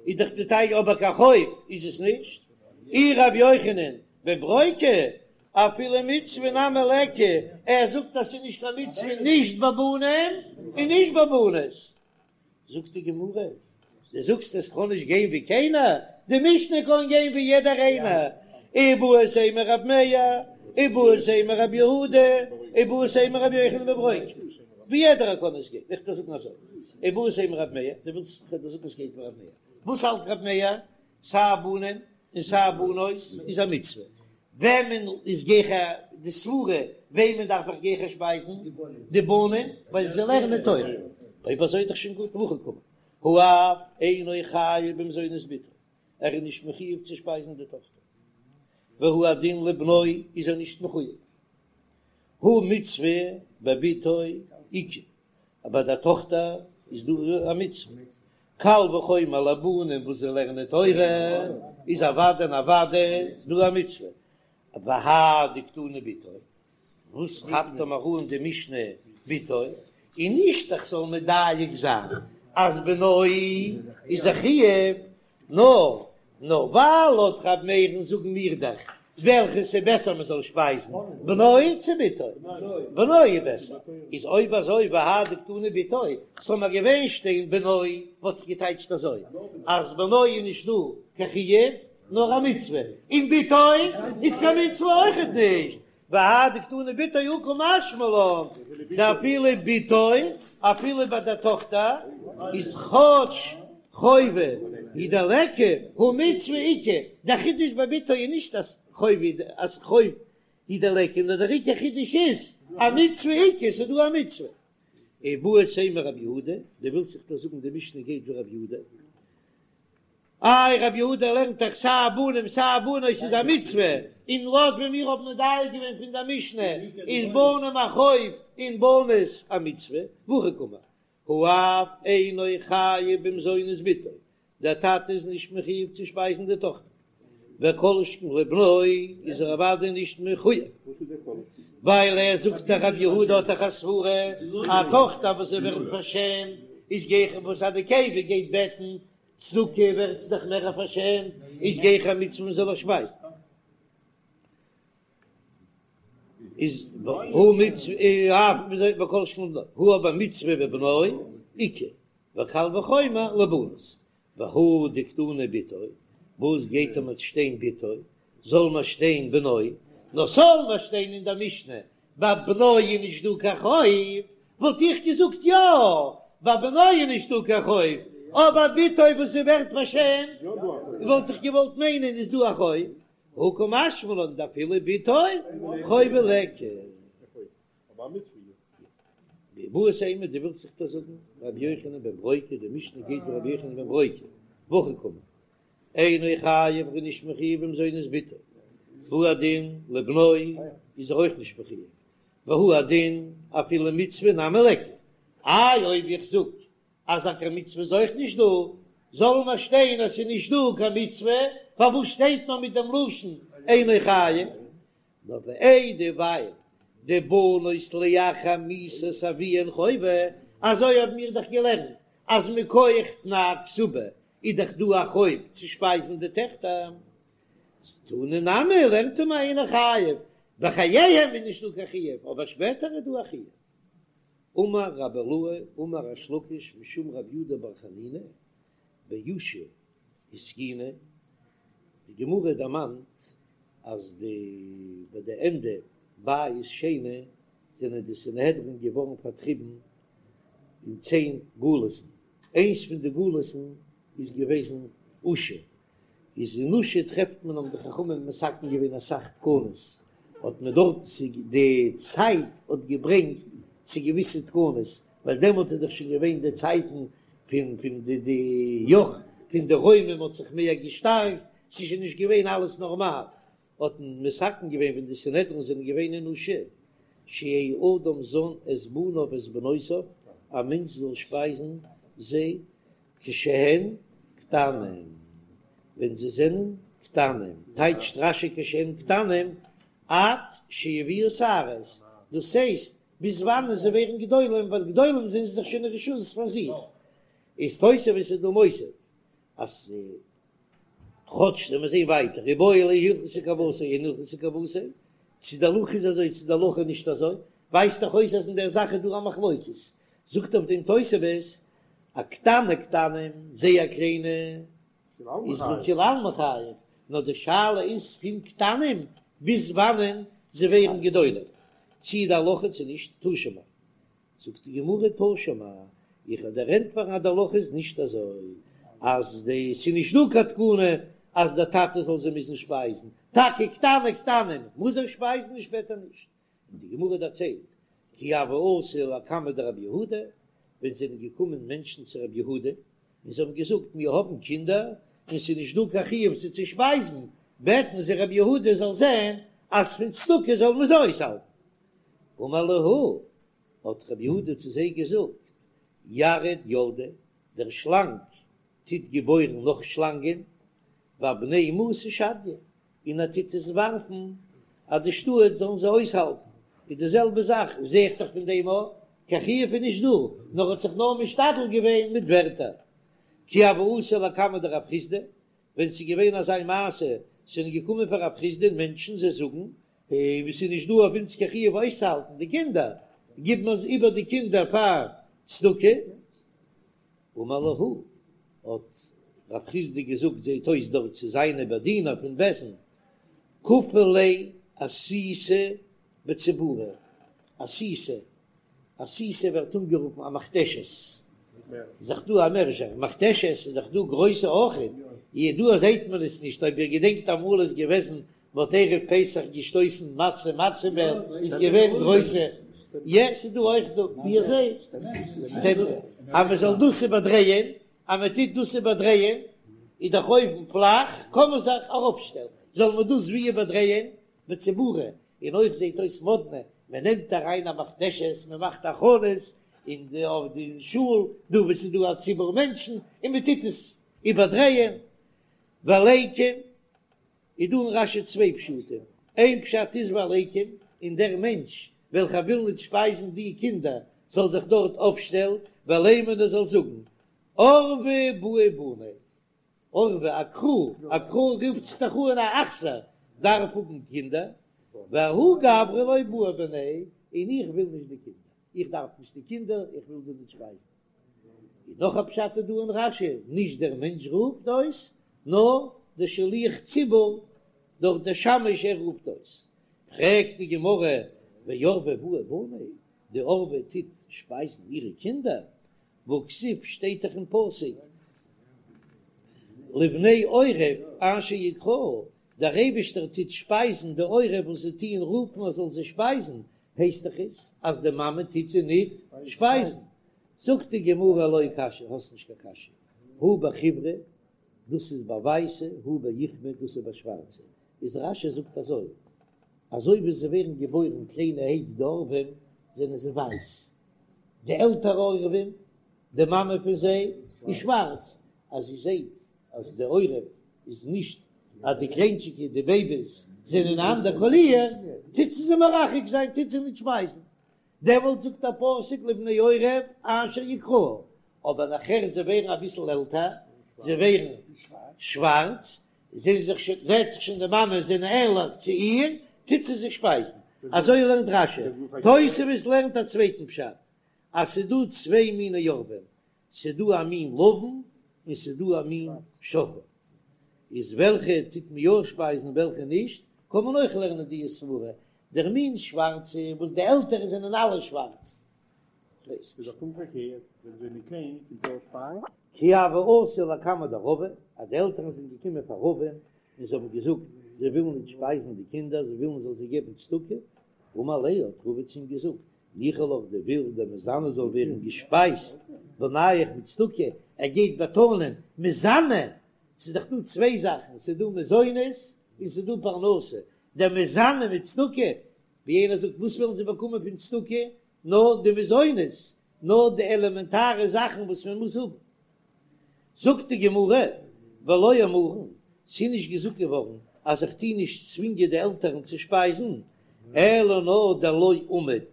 איז דאך די טייטש אבער קיין חוב איז עס נישט. אי רבי יוחנן בן ברוקה אפילו מצוה נמי ליכא, ער זאגט אז ס'איז נישט קיין מצוה נישט ביי בנים און נישט ביי בנות. זאגט די גמרא, דו זאגסט עס קען נישט גיין ווי קיינער, די משנה קען גיין ווי יעדער איינער, איבעית אימא רב מאיר, איבעית אימא רב יהודה, איבעית אימא רבי יוחנן בן ברוקה, ווי יעדער קען עס גיין, איך דיר זאגן אזוי, איבעית אימא רב מאיר, דו ווילסט איך וועל דיר זאגן עס גייט ווי רב מאיר, וואס האלט רב מאיר? סיי בנים און סיי בנות איז א מצוה, וועמען איז גיכער די סברה וועמען דארף איך גיכער שפייזן? די בנים ווייל זיי לערנען תורה. אויב אזוי איז דאך שוין גוט והכי קאמר האב אינו חייב במזונות בתו, ער איז נישט מחויב צו שפייזן די טאכטער, והוא הדין לבנו איז ער נישט מחויב, הא מצוה בבתו איכא, אבער ביי די טאכטער איז דא א מצוה, קל וחומר לבנים וואס זיי לערנען תורה איז אוודאי און אוודאי דא א מצוה, והא דקתני בתו, וואס כאפט ער מיר אן די משנה בתו, און נישט איך זאל מדייק זיין אז בנו איז א חיוב, נאר נאר ווייל לויט ר' מאיר'ן זאגן מיר דאך וועלכעס איז בעסער מען זאל שפייזן בנו צו בתו, בנו איז בעסער, איז אויב אזוי והא דקתני בתו, זאל מיר געווען שטיין בנו וואלט איך געטייטשט אזוי אז בנו איז נישט דא קיין חיוב נאר א מצוה, און בתו איז קיין מצוה אויכעט נישט, והא דקתני בתו הא קא משמע לן דאפילו בתו, אפילו ביי דער טאכטער איז כאטש חובה הוא דליכא הא מצוה איכא, דער חידוש ביי בתו איז נישט אז חובה אז חוב הוא דליכא, נאר דער עיקר חידוש איז א מצוה איכא, ס'איז דא א מצוה. איבעית אימא רב יהודה, דו ווילסט זיך דא זאגן די משנה גייט ווי רב יהודה. איי רבי יהודה לערנט דאך סיי בנים סיי בנות איז א מצוה, און לויט ווי מיר האבן מדייק געווען פון דער משנה איז בנים א חוב און בנות א מצוה, והכי קאמר, האב אינו חייב במזונות בתו, דער טאטע איז נישט מחויב צו שפייזן די טאכטער, וכל שכן לבנו איז ער אוודאי נישט מחויב, ווייל ער זאגט דאך רבי יהודה האט דאך א סברה, א טאכטער וואס זי ווערט פארשעמט איז גיכער וואס א נקבה גייט בעטן צדקה ווערט זי דאך מער פארשעמט, איז גיכער א מצוה מען זאל איר שפייזן. איז הא מצוה אף וכל שכן לבנו, הא אבער מצוה בבנו איכא, וקל וחומר לבנות, והא דקתני בתו, וואס גייט אים שטיין בתו, זאל מען שטיין בנו, נאר ס'זאל מען שטיין אין דער משנה ביי בנו איז נישט דא קיין חוב, וואלט איך געזאגט יא, ביי בנו איז נישט דא קיין חוב, אבער בתו וואס זי ווערט פארשעמט, וואלט איך געוואלט מיינען איז דא א חוב, הא קא משמע לן דאפילו בתו חובה ליכא. ואיבעית אימא דו ווילסט זיך דא זאגן רבי יוחנן בן ברוקה, די משנה גייט ווי רבי יוחנן בן ברוקה, והכי קאמר. אינו חייב ער איז נישט מחויב במזונות בתו, והוא הדין לבנו איז ער אויך נישט מחויב, והוא הדין אפילו מצוה נמי ליכא, איי אויב איך זאג אז א קיין מצוה איז אויך נישט דא, זאל מיר שטיין אז ס'איז נישט דא קיין מצוה, פארוואס שטייט נאר מיט דעם לשון אינו חייב? נאר ואיידי ווייל דבנות לאחר מיתת אביהן חובה, אזוי האבן מיר דאך געלערנט אז מכח תנאי כתובה איז דאך דא א חוב צו שפייזן די טעכטער, תנא נמי לערנט מען אינו חייב, בחייהם איז נישטא קיין חיוב אבער שפעטער איז דא א חיוב. אמר רבי אילעא אמר ריש לקיש משום רבי יהודה בר חנינא באושא התקינו, די גמרא דערמאנט אז די ביי די ענדע בית שני זענען די סנהדרין געווארן פארטריבן אין צען גלות'ן, איינס פון די גלות'ן איז געוועזן אושא, איז אין אושא טרעפט מען האבן די חכמים מתקן געווען אסאך תקנות, האט מען דארט די צייט האט געברענגט צו געוויסע תקנות, ווייל דעמאלט איז דאך שוין געווען די צייטן פון פון די די יאך פון די רוימים האט זיך מער געשטארקט, ס'איז שוין נישט געווען אלעס נארמאל, האט מען מתקן געווען ווען די סנהדרין זענען געווען אין אושא, שיהא אדם זן את בניו ואת בנותיו, א מענטש זאל שפייזן זיי כשהן קטנים, ווען זיי זענען קטנים, טייטשט רש"י כשהן קטנים, עד שיביאו שערות, דאס הייסט ביז וואנען זיי ווערן גדולים, ווייל גדולים זענען זיי דאך שוין אין רשות פאר זיך, איז תוספות איז דא מוסיף אז כאטש ווען מיר זעהן ווייטער איבעיא להו הלכתא כוותיה אין הלכתא כוותיה, צו די הלכה איז אזוי צו די הלכה איז נישט אזוי, ווייזט דאך אויס אז אין דער זאך איז דא א מחלוקת, זאגט אויף דעם תוספות, א קטני קטנים, זייער קליינע, איז לכולי עלמא חייב, נאר די שאלה איז פון קטנים ביז וואנען זיי ווערן גדולים, צי די הלכה צו נישט, תא שמע. זאגט די גמרא תא שמע, איך וועל דיר ענטפערן אז די הלכה איז נישט אזוי, אז די ס'איז נישט דא קיין תקנה אז דער טאטע זאל זיי מוזן שפייזן, טאקע קטני קטנים מוז ער שפייזן און שפעטער נישט, און די גמרא דערציילט, כי הוו אתו לקמיה דרב יהודה, ווען זענען געקומען מענטשן צו רב יהודה, און זיי האבן געזאגט, מיר האבן קינדער, און ס'איז נישט דא קיין חיוב זיי צו שפייזן, בעטן זיי רב יהודה זאל זען אז פון צדקה זאל מען זיי אויסהאלטן. אמר להו, האט רב יהודה צו זיי געזאגט, ירוד ילדי, דער שלאנג טוט געבוירן נאך שלאנגען, ואבני מאסא שדיא, און ער טוט עס ווארפן אז די שטאט זאלן זיי אויסהאלטן, איז די זעלבע זאך, זע איך דאך פון דעם אויך, קיין חיוב איז נישט דא, נאר האט זיך נאר משתדל געווען מיט ווערטער. כי הוו אתו לקמיה דרב חסדא, ווען ס'איז געווען אזא מעשה, ס'זענען געקומען פאר רב חסדא'ן מענטשן, זיי זאגן, ווי ס'איז נישט דא אויף אונז קיין חיוב אויסצוהאלטן די קינדער, גיבן מיר איבער די קינדער פאר צדקה, אמר להו, האט רב חסדא געזאגט זעהט אויס דארט צו זיינע באדינער פון בית דין, כפו ליה אסיתא בציבורא, אסיתא, אסיתא ווערט אנגערופן א מכתשת, איז דאך דא א מערזשער, מכתשת איז דאך דא גרויסע אויכעט, דא זעהט מען עס נישט, אויב איר געדענקט אמאל איז געוועזן מ'האט ערב פסח געשטויסן מצה מצה מעל איז געווען גרויסע, יע ס'איז דא אויך דא ווי אזוי אז מ'זאל דאס איבערדרייען, אז מ'טוט דאס איבערדרייען איז דאך אויבן פלאך קען מען זיך ארויפשטעלן, זאל מען דאס ווי איבערדרייען בציבורא, און אויך זעט אויס מאדנע, מען נעמט אריין א מכתשת, מען מאכט הכנות אין די אויף די שול דא וואו ס'איז דא א ציבור מענטשן און מ'טוט עס איבערדרייען, וליקום. איז דא אין רש"י צוויי פשטים, איין פשט איז וליקום, און דער מענטש וועלכער וויל ניט שפייזן די קינדער זאל זיך דארט אויפשטעלן, ולימא און ער זאל זאגן, עורבא בעי בני, עורבא א קרא, א קרא רופט זיך דאך אן א אכזר, דארף האבן קינדער, וההוא גברא לא בעי בני, און איך וויל נישט די קינדער, איך דארף נישט די קינדער, איך וויל זיי נישט שפייזן. און נאך א פשט איז דא אין רש"י, נישט דער מענטש רופט אויס, נאר דער שליח ציבור דורך דער שמש ער רופט אויס. פרעגט די גמרא, ועורבא בעי בני, די עורבא טוט שפייזן אירע קינדער, והכתיב שטייט דאך אין פסוק, לבני עורב אשר יקראו, דער אייבישטער טוט שפייזן די עורב וואס זיי טוען רופן ער זאל זיי שפייזן, הייסט דאך עס אז די מאמע טוט זיי ניט שפייזן. זאגט די גמרא לא קשיא, האסט נישט קיין קשיא, הא בחיורא. דאס איז ביי ווייסע, הא באוכמי, דאס איז ביי שווארצע. איז רש"י זאגט אזוי, אזוי ווי זיי ווערן געבוירן קליינערהייט די עורבים זענען זיי ווייס, די עלטערע עורבים, די מאמע פון זיי איז שווארץ, אז זי זעט אז די עורב איז נישט אז די קליינטשיגע די בעיביס זענען א אנדער קאליר, טוט זי זיי מרחק זיין, טוט זי נישט שפייזן, דעמאלט זאגט דער פסוק לבני עורב אשר יקראו, אבער נאכער זיי ווערן אביסל עלטער, זיי ווערן שווארץ, זעט זיך שוין זעט זיך שוין די מאמע זענען ענליך צו איר, טוט זי זיי שפייזן. אזוי לערנט רש"י. תוספות לערנט א צווייטן פשט, אז ס'איז דא צוויי מיני עורבים, ס'איז דא א מין לבן און ס'איז דא א מין שחור. איז וועלכע טוט מען יא שפייזן וועלכע נישט, קען מען אויך לערנען די סברה, דער מין שווארצע וואס די עלטערע זענען אלע שווארץ. איז דאך פונקט פארקערט, ווען זיי זענען קליין קומט אויס פיין. כי הוו אתו לקמיה דרבא, אז די עלטערן זענען געקומען פאר רבא'ן און זיי האבן געזאגט זיי ווילן נישט שפייזן די קינדער, זיי ווילן מ'זאל זיי געבן צדקה, אמר להו האט רבא צו אים געזאגט, ניחא לך דו ווילסט דמיזנו זאל ווערן געשפייזט בנייך מיט צדקה, ער גייט באטאנען מיזנו, ס'איז דאך דא צוויי זאכן, ס'איז דא מזונות און ס'איז דא פרנסה, דמיזנו מיט צדקה, ווי איינער זאגט וואס ווילן זיי באקומען פון צדקה, נאר די מזונות, נאר די עלעמענטארע זאכן וואס מען מוז האבן. זאגט די גמרא, ולא אמרן, ס'איז נישט געזאגט געווארן אז איך טו נישט צווינגען די עלטערן צו שפייזן, אלא נאר דלא אמיד,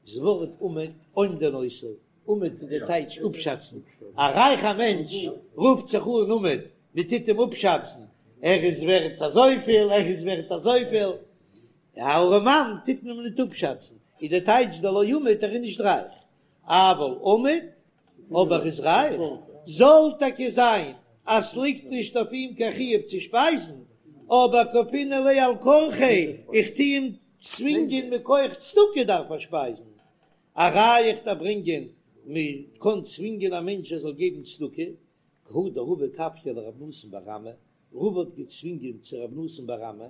דאס ווארט אומד, אומדין אותו, אומד איז די טייטש אפשאצן, א רייכע מענטש רופט זיך אן אומד, מען טוט אים אפשאצן, ער איז ווערט אזויפיל, ער איז ווערט אזויפיל, א ארעמאן טוט מען ניט אפשאצן, איז די טייטש דלא אמיד ער איז נישט רייך, אבל אמיד אויב ער איז רייך, זאל טאקע זיין אז ס'ליגט נישט אויף אים קיין חיוב צו שפייזן, אבער כפינן ליה על כרחיה, איך טו אים צווינגען מכח צדקה דארף ער שפייזן, א ראיה איך דארף ברענגען מען קען צווינגען א מענטש ער זאל געבן צדקה, כי הא דרבא כפייה לרב נתן בר אמי, רבא האט געצווינגען צו רב נתן בר אמי,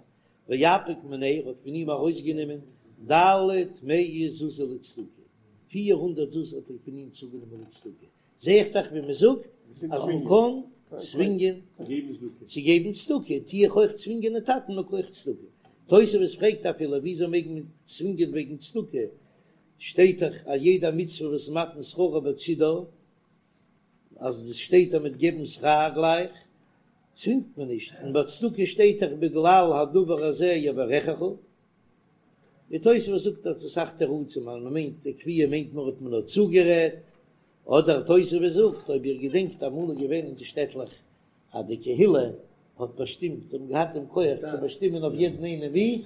ואפיק מיניה, ער האט פון אים ארויסגענומען ד' מאה זוזי לצדקה, 400 זוז האט ער פון אים צוגענומען לצדקה, זע איך דאך ווי מען זאגט אז מען קען צווינגען צו געבן צדקה, טו איך אויך צווינגען די טאטן מכח צדקה. תוספות פרעגט אפילו וויאזוי מעג מען צווינגען וועגן צדקה, שטייט דאך אז יעדע מצוה וואס מתן שכרה בצידה, אז עס שטייט אז מ'וועט געבן שכר גלייך, צווינגט מען נישט, און ביי צדקה שטייט דאך בגלל הדבר הזה יברכך. די תוספות זאגט אז אסאך תירוצים אז מ'מיינט די כפייה מיינט נאר האט מען נאר צוגערעדט, אדער תוספות זאגט אויב איר געדענקט אמאל איז געווען אין די שטעטלעך אז די קהילה האט באשטימט, זיי האבן געהאט דעם כח צו באשטימען אויף יעדן איינעם ווי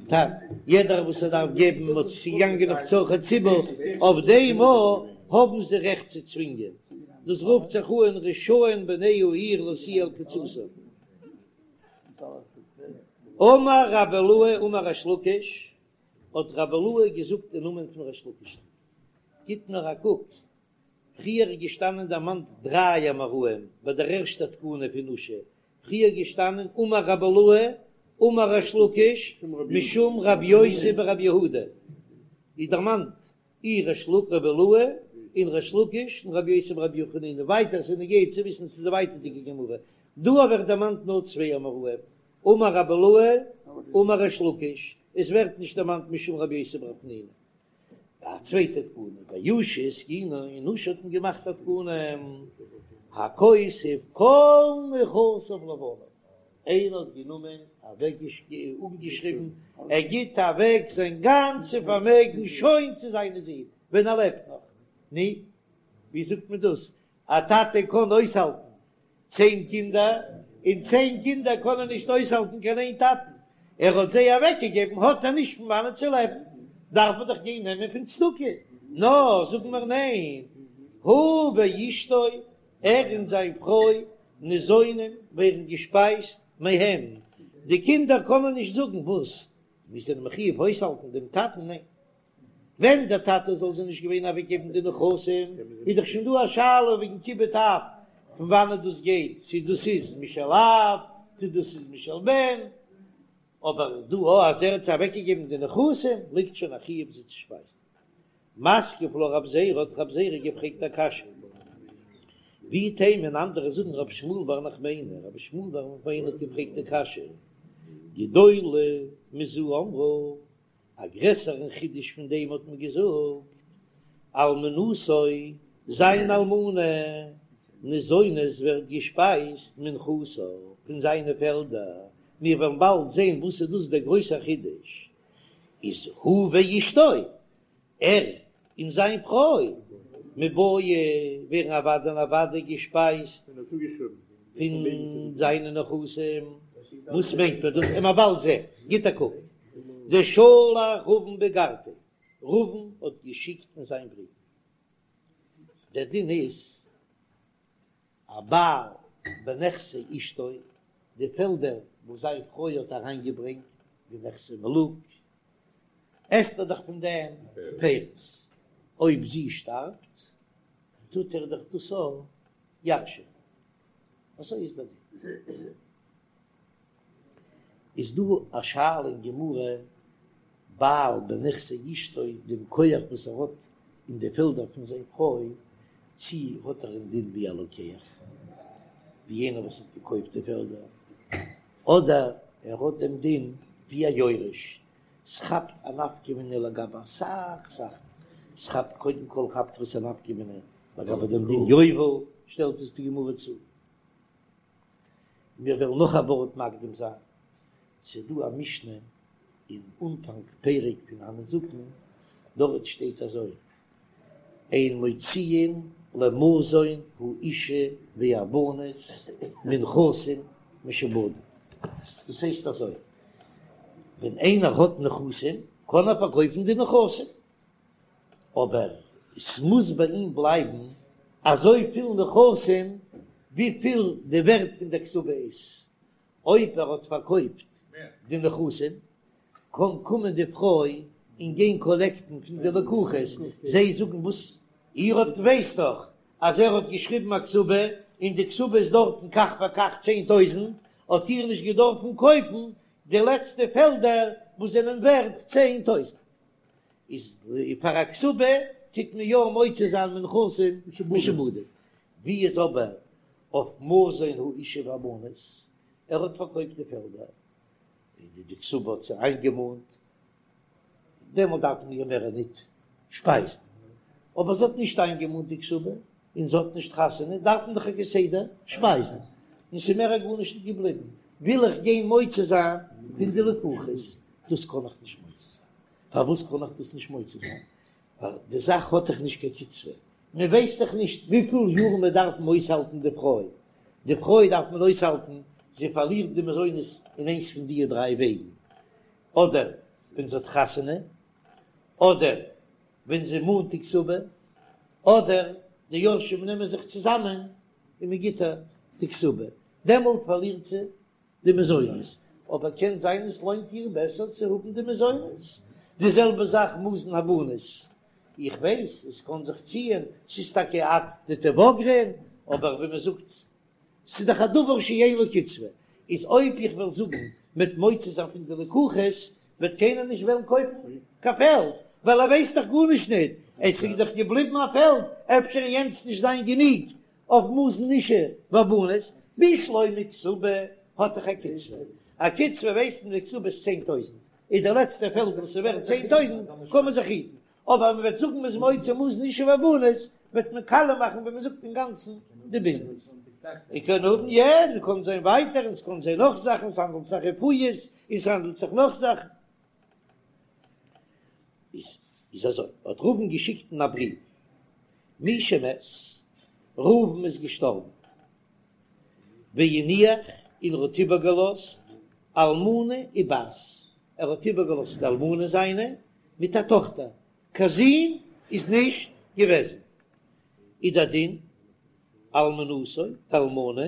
טאג, יעדער וואס ער דארף געבן, מען האט צוגעגאנגען אויף צרכי ציבור, אויף דעם האבן זיי רעכט צו צווינגען, דאס רופט זיך אן רשאין בני העיר להשיאו על קצתם. אמר רבי אילעא אמר ריש לקיש, האט רבי אילעא געזאגט אין נאמען פון ריש לקיש'ן, גיט נאר א קוק, פריער איז געשטאנען דערמאנט דריי אמוראים ביי דער ערשטער תקנה פון אושא, פריער געשטאנען אמר רבי אילעא אמר ריש לקיש משום רבי יוסי ברבי יהודה, איז דערמאנט אי ריש לק רבי אילעא און ריש לקיש און רבי יוסי ברבי חנינא, ווייטער ס'איז נוגע צו וויסן צו די ווייטערדיגע גמרא, דא ווערט דערמאנט נאר צוויי אמוראים, אמר רבי אילעא אמר ריש לקיש, עס ווערט נישט דערמאנט משום רבי יוסי ברבי חנינא. א צווייטע תקנה, באושא התקינו, אין אושא האט מען געמאכט א תקנה, הכותב כל נכסיו לבניו, איינער האט גענומען אוועק אפגעשריבן, ער גיט אוועק זיין גאנצע פארמעגן שוין צו זיינע זין ווען ער לעבט נאך, נו, ווי זאגט מען דאס, א טאטע קען אויסהאלטן צען קינדער, און צען קינדער קענען נישט אויסהאלטן קיין איין טאטן, ער האט זיי אוועקגעגעבן האט ער נישט פון וואנען צו לעבן, דארף מען דאך גיין נעמען פון צדקה, נאר זאגן מיר ניין, הוא ואשתו, ער און זיין פרוי, ניזונים, ווערן געשפייזט מהם, די קינדער קענען נישט זאגן וואס, מיר זענען מחיוב אויסהאלטן דעם טאטן, ניין. ווען דער טאטע זאל זיי נישט געווען אוועקגעבן די נכסים, איז דאך שוין דא א שאלה וועגן כיבוד אב, פון וואנעט דאס גייט, צו דאס איז משל אב, צו דאס איז משל בן, אבער דא א אז ער האט זיי אוועקגעגעבן די נכסים, ליגט שוין א חיוב זיי צו שפייזן. מתקיף לה רב זירא, האט רב זירא געפרעגט א קשיא. ואיתימא און אנדערע זאגן רבי שמואל בר נחמני, רבי שמואל בר נחמני האט געפרעגט די קשיא, גדולה מזו אמרו, א גרעסערן חידוש פון דעם האט מען געזאגט, אלמנתו, זיין אלמנה, ניזונת ווערט געשפייזט מנכסיו, פון זיינע פעלדער, מיר וועלן באלד זען וואס איז דאס דער גרויסער חידוש, איז הוא ואשתו, ער און זיין פרוי מיבעיא ווערן אוודאי און אוודאי געשפייזט פון זיינע נכסים, וואס מיינט מען דאס? עמער באלד זען, גיט א קוק, דשלח רבין באיגרתיה, רבין האט געשיקט אין זיין בריוו, דער דין איז א בעל בנכסי אשתו, די פעלדער וואס זיין פרוי האט אריינגעברענגט, די נכסי מלוג, עסט ער דאך פון דעם פירות, אויב זי שטארבט טוט ער דאך דאס אויך ירש'ענען, אזוי איז דער דין. איז דא א שאלה אין גמרא, בעל בנכסי אשתו, דעם כח וואס ער האט אין די פעלדער פון זיין פרוי, צי האט ער דעם דין ווי א לוקח, ווי יענער וואס האט געקויפט די פעלדער, אדער ער האט דעם דין ווי א יורש, ס'כאפט א נפקא מינה לגבי אסאך זאכן, ס'כאפט קודם כל כאפט עס א נפקא מינה לגבי דעם דין יובל, שטעלט עס די גמרא צו. מיר וועלן נאך א ווארט מקדים זיין, ס'איז דא א משנה אין אנפאנג פרק פון הנזקין, דארט שטייט אזוי, אין מוציאין למזון האשה והבנות מנכסים משועבדים, דאס הייסט אזוי, ווען איינער האט נכסים קען ער פארקויפן די נכסים, אבער עס מוז ביי אים בלייבן אזויפיל נכסים וויפיל די ווערט פון דער כתובה איז, אויב ער האט פארקויפט די נכסים קען קומען די פרוי און גיין קאלעקטן פון די לקוחות, זיי זאגן וואס איר האט ווייסט דאך אז ער האט געשריבן א כתובה און די כתובה איז דארטן כך וכך 10,000, האט איר נישט געדארפן קויפן די לעצטע פעלדער וואס זענען ווערט 10,000. איז פאר א כתובה טוט מען יא מוציא זיין מנכסים משועבדים, ווי איז אבער אויף מזון האשה והבנות, ער האט פארקויפט די פעלדער, און די כתובה האט זי איינגעמאנט, דעמאלט דארף מען איר מער ניט שפייזן, אבער זי האט נישט איינגעמאנט די כתובה, און זי האט נישט חתונה, דארף מען דאך איר כסדר שפייזן, און ס'איז מער גארנישט נישט געבליבן, וויל איך גיין מוציא זיין פון די לקוחות, דאס קען איך נישט מוציא זיין. פארוואס קען איך דאס נישט מוציא זיין? ווייל די זאך האט דאך נישט קיין קצבה, מען ווייסט דאך נישט וויפיל יאר מען דארף אויסהאלטן די פרוי, די פרוי דארף מען אויסהאלטן, זי פארלירט די מזונות אין איינס פון די דריי וועגן, אדער ווען זי האט חתונה, אדער ווען זי מאנט די כתובה, אדער די יורשים נעמען זיך צוזאמען און מען גיט איר די כתובה, דעמאלט פארלירט זי די מזונות, אבער קען זיין עס לוינט איר בעסער צו האבן די מזונות, די זעלבע זאך מזון הבנות, איך ווייס עס קען זיך ציען, ס'איז טאקע עד דתבגרן, אבער ווי מען זאגט ס'איז דאך א דבר שאין לו קצבה, איז אויב איך וועל זאגן מ'וועט מוציא זיין פון די לקוחות וועט קיינער נישט וועלן קויפן קיין פעלד, ווייל ער ווייסט דאך גארנישט ניט, עס איז דאך געבליבן א פעלד, אפשר יענץ נישט זיין גענוג אויף מזון אשה והבנות, בשלמא כתובה האט דאך א קצבה, א קצבה ווייסט מען די כתובה איז 10,000, איז די לעצטע פעלד וואס איז ווערט 10,000 קען מען זיך היטן, אבער מען וועט זאגן מ'איז מוציא מזון אשה והבנות וועט מען קאליע מאכן ווי מען זאגט אינגאנצן די ביזנעס. איר קען האבן יא, מען קען זען ווייטער און ס'קען זיין נאך זאכן, ס'האנדלט זיך רפואות און ס'האנדלט זיך נאך זאכן. איז אזוי, האט ראובן געשיקט אין א בריוו, מי שמת, ראובן איז געשטארבן, והניח, און ער האט איבערגעלאזט אלמנה ובת, ער האט איבערגעלאזט די אלמנה זיינע מיט א טאכטער, קיין זון איז נישט געוועזן, איז דער דין, אלמנתו, די אלמנה,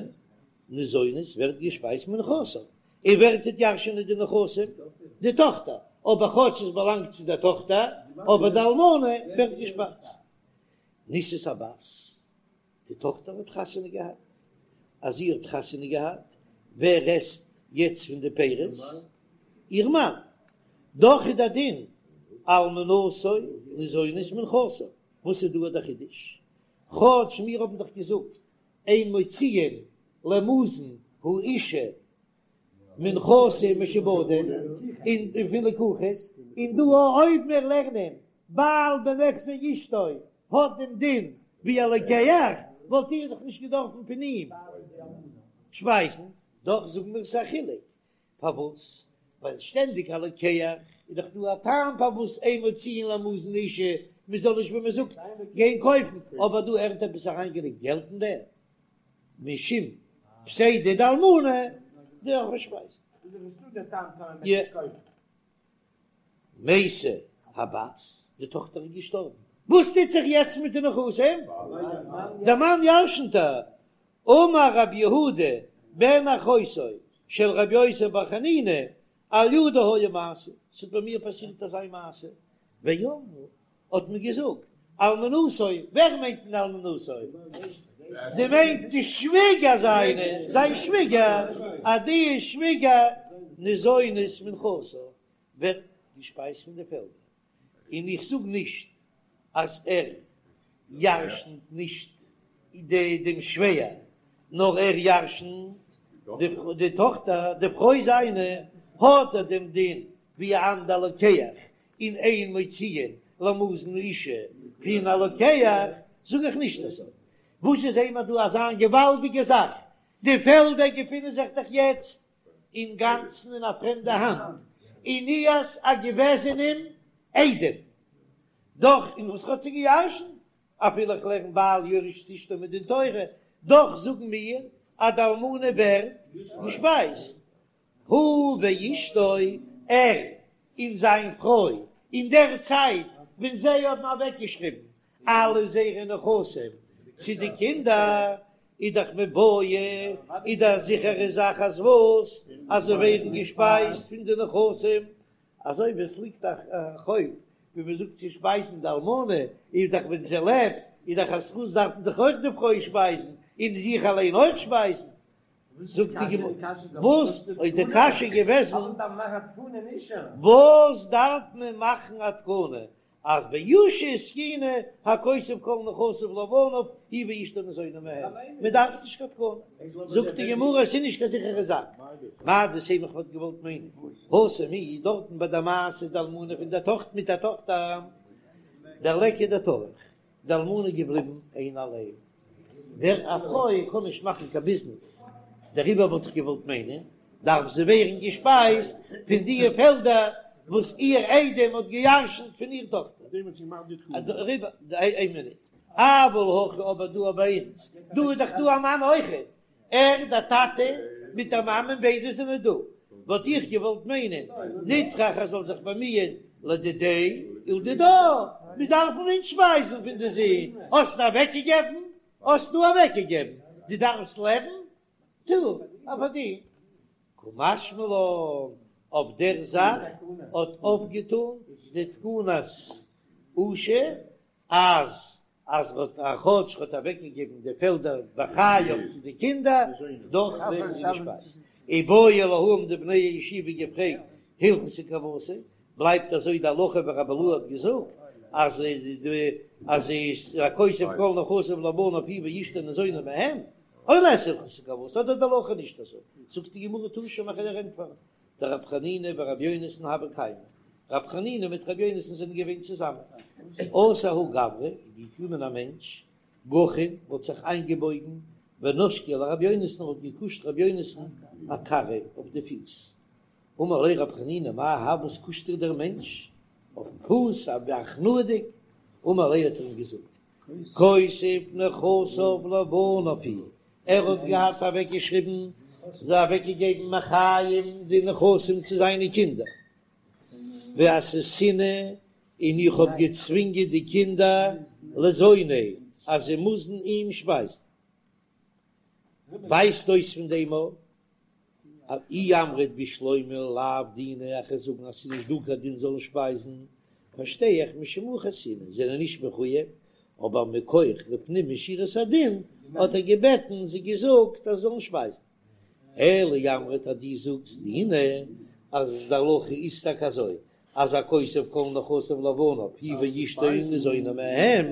ניזונת ווערט געשפייזט מנכסיו, און ווער טוט ירש'ענען די נכסים? די טאכטער, אבער כאטש עס באלאנגט צו דער טאכטער, אבער די אלמנה ווערט געשפייזט. נישאת הבת, די טאכטער האט חתונה געהאט, אז זי האט חתונה געהאט, ווער עסט יעצט פון די פירות? איר מאן. דאך איז דער דין, אלמנתו ניזונת מנכסיו. וואס איז דא דער חידוש? כאטש מיר האבן דאך געזאגט. אין מוציאין למזון האשה מנכסים משועבדים און פון לקוחות, און דא אויב מיר לערנען בעל בנכסי אשתו האט דעם דין ווי א לוקח, וואלט איר דאך נישט געדארפן פון אים שפייזן, דאך זאגן מיר ס'איז א חילוק, פארוואס? ווייל שטענדיג א לוקח איז דאך דא א טעם פארוואס אין מוציאין למזון אשה, מען זאל נישט ווי מען זאגט גיין קויפן, אבער דא ער האט עפעס אריינגעלייגט געלט אין דעם, משום פסידא דאלמנה דארף מען שפייזן. מתה הבת, די טאכטער איז געשטארבן, וואס טוט זיך יעצט מיט די נכסים? דער מאן ירשנט איר. אמר רב יהודה בן אחותו של רבי יוסי בר חנינא, על ידי היה מעשה, ס'האט ביי מיר פאסירט אזא מעשה, ואמרו, האט מען געזאגט, אלמנתו, ווער מיינט מען אלמנתו? די מיינט די שוויגער זיינע, זיין שוויגער, אז די שוויגער ניזונת מנכסיו, ווערט געשפייזט פון די פעלדער, און איך זאג נישט אז ער ירשנט נישט דעם שווער, נאר ער ירשנט די טאכטער, די פרוי זיינע, האט ער דעם דין ווי א אנדער לוקח, און אין מוציאין למזון אשה פון א לוקח, זאג איך נישט אזוי. וואס איז אימער דא אזא געוואלדיגע זאך, די פעלדער געפינען זיך דאך יעצט אינגאנצן אין א פרעמדע האנט, און איהר'ס א געוועזענעם איידעם, דאך און וואס האט זי געירשנט, אפילו איך לערן בעל יורש את אשתו מדין תורה, דאך זאגן מיר אז די אלמנה ווערט געשפייזט, הוא ואשתו, ער און זיין פרוי, אין דער צייט ווען זיי האבן אוועקגעשריבן אלע זייערע נכסים צו די קינדער, איז דאך מיבעיא, איז דאך א זיכערע זאך אז וואס? אז זיי ווערן געשפייזט פון די נכסים, אזוי ווי עס ליגט א חוב ווי מען זאגט צו שפייזן די אלמנה, איז דאך ווען זי לעבט איז דאך א זכות דארף מען דאך אויך די פרוי שפייזן, און זיך אליין אויך שפייזן, זאגט די גמרא, וואס איז די קשיא געוועזן? וואס דארף מען מאכן א תקנה אז באושא התקינו הכותב כל נכסיו לבניו הוא ואשתו ניזונים מהם, מען דארף נישט קיין תקנה. זאגט די גמרא עס איז נישט קיין זיכערע זאך, מהו דתימא איך וואלט געוואלט מיינען התם איז דארטן ביי די מעשה די אלמנה פון די טאכטער מיט א טאכטער דליכא דטרח די אלמנה איז געבליבן איין אליין, דער א פרוי קען נישט מאכן קיין ביזנעס, דעריבער וואלט איך געוואלט מיינען, דארף זי ווערן געשפייזט פון די פעלדער וואס איר איידעם האט געירשנט פון איר טאכטער. דעריבער, איין מינוט, אבל הכא אבער דא ביי אונז, דא איז דאך דא א מאן אויכעט, ער, דער טאטע, מיט דער מאמען ביידע זענען דא, וואלט איך געוואלט מיינען, נטרח ער זאל זיך באמיען לדידיה ולדידה, מיר דארפן אונז שפייזן פון די זין, האסט אוועקגעגעבן, האסטו אוועקגעגעבן, דו דארפסט לעבן, טו א פארדין. קא משמע לן, אויף דער זאך האט אויפגעטאן די תקנת אושא אז אז ר'האט א כאטש ר'האט אוועקגעגעבן די פעלדער בחייו צו די קינדער, דאך ווערן זיי געשפייזט. איבעיא להו האבן די בני הישיבה געפרעגט הלכתא כוותיה, בלייבט אזוי די הלכה ווי רבי אילעא האט געזאגט אז די אז איז הכותב כל נכסיו לבניו הוא ואשתו ניזונים מהם, או לית הלכתא כוותיה אדער די הלכה נישט אזוי, זאגט די גמרא תא שמע כ'וועל דיר ענטפערן, דרב חנינא ורבי יונתן הוו קיימי, רב חנינא מיט רבי יונתן זענען געווען צוזאמען, אתא ההוא גברא, איז געקומען א מענטש, גחין, האט זיך איינגעבויגן, ונשקיה לרבי יונתן, האט געקושט רבי יונתן אכרעיה אויף די פיס, אמר ליה רב חנינא מאי האי וואס קושט דיר דער מענטש אויפן פוס, הכנעה'דיג, אמר ליה האט ער אים געזאגט, כותב נכסיו לבניו הוא, ער האט געהאט אוועקגעשריבן, זיי אוועקגעגעבן מחיים די נכסים צו זיינע קינדער, ואסהיתינהו, און איך האב געצווינגען די קינדער לזוניה אז זיי מוזן אים שפייזן. ווייזט אויס פון דעם א אי אמרת בשלמא לאו דינא איך וועל זאגן אז ס'איז נישט דא קיין דין זאלן שפייזן, פארשטיי איך משום הכי אייתינהו זענען נישט מחויב, אבער מכח לפנים משורת הדין האט ער געבעטן זיי געזאגט אז זאלן שפייזן. אלא אי אמרת אז דו זאגסט דינא אז די הלכה איז טאקע אזוי אז הכותב כל נכסיו לבניו הוא ואשתו ניזונים מהם.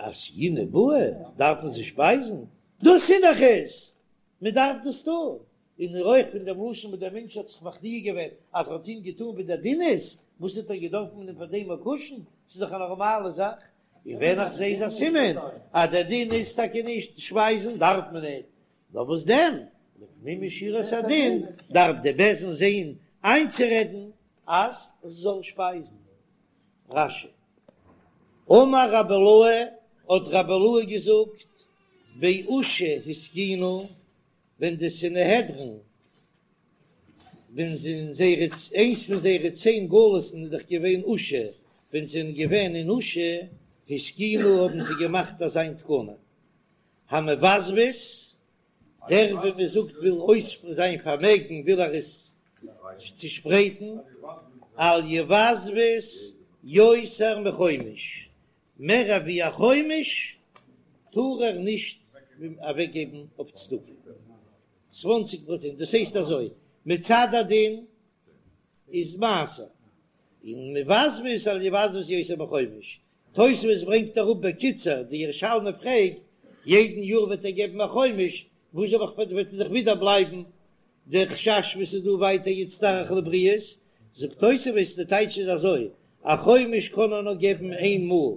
אתיינהו בעי דארף מען זיי שפייזן, דאס איז דאך עס, מען דארף דאס טון, און אויך פון דעם לשון וואס דער מענטש האט זיך מכניע געווען אז ער האט אים געטון ווי דער דין איז, וואס האט ער געדארפט מען אים פאר דעם קושן, ס'איז דאך א נארמאלע זאך, און ווען איך זע איז א סימן אז דער דין איז טאקע נישט שפייזן דארף מען ניט, נאר וואס דען, לפנים משורת הדין דארף די בית דין זען איינצורעדן אז עס זאל שפייזן. רש"י. אמר רבי אילעאי, האט רבי אילעאי געזאגט, באושא התקינו, ווען די סנהדרין, ווען זיי אין זייערע, איינס פון זייערע צען גלות'ן איז דאך געווען אושא, ווען זיי זענען געווען אין אושא התקינו האבן זיי געמאכט אזיין תקנה, המבזבז, דער ווי מען זאגט וויל אויס זיין פארמעגן וויל ער עס צושפרייטן, אל יבזבז יותר מחומש, מער ווי א חומש טאר ער נישט אוועקגעבן אויף צדקה, צוואנציג פראצענט, דאס הייסט אזוי, מצד הדין איז מעשר, און מבזבז אל יבזבז יותר מחומש, תוספות ברענגט אראפ בקיצור, די ירושלמי פרעגט, יעדן יאר וועט ער געבן א חומש, וואס זאל איך וועט ער זיך ווידער בלייבן דער חשש וואס איז דא ווייטער יצטרך לבריות, זאגט תוספות די טייטש איז אזוי, א חומש קען ער נאר געבן איין מאל,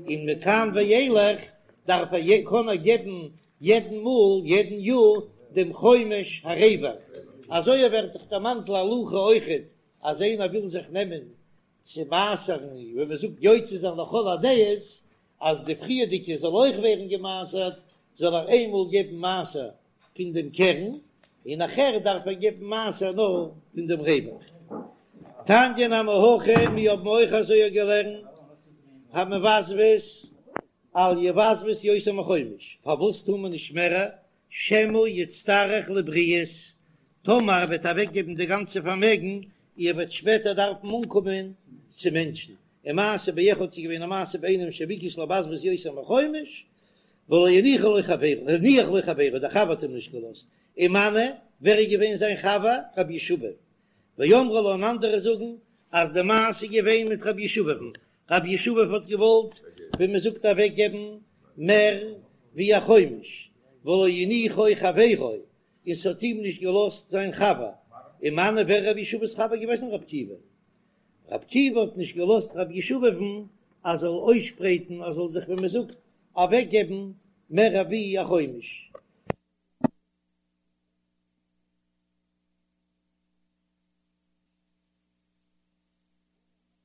און מכאן ואילך דארף ער קען ער געבן יעדן מאל יעדן יאר דעם חומש הרווח, אזוי ווערט דאך דערמאנט להלכה אויכעט אז איינער וויל זיך נעמען צו מעשר'ן, ווי מען זאגט יוצא זיין לכל הדעות, אז די פריערדיגע זאל אויך ווערן געמעשר'ט, זאל ער איינמאל געבן מעשר פון דעם קרן, און נאכער דארף ער געבן מעשר נאר פון דעם רווח. תניא נמי הכי, מיר האבן אויך אזוי געלערנט, המבזבז אל יבזבז יותר מחומש, פארוואס טאר מען נישט מער שמא יצטרך לבריות, טאמער ער וועט אוועקגעבן די גאנצע פארמעגן, ער וועט שפעטער דארפן אנקומען צו מענטשן. ומעשה באחד ס'איז געווען א מעשה ביי איינעם שביקש לבזבז יותר מחומש, ולא הניחו לו חברו, הניח לו חברו, דער חבר האט אים נישט געלאזט. ומנו, ווער איז געווען זיין חבר? רבי ישבב. ואמרי לה און אנדערע זאגן אז די מעשה איז געווען מיט רבי ישבב'ן, רבי ישבב האט געוואלט ווי מען זאגט אוועק געבן מער ווי א חומש, ולא הניחו חברו, און ס'האט אים נישט געלאזט זיין חבר, ומנו ווער רבי ישבב'ס חבר געוועזן רבי עקיבא, רבי עקיבא האט נישט געלאזט רבי ישבב'ן אז זאל אויסשפרייטן אז זאל זיך ווי מען זאגט אוועק געבן מער ווי א חומש.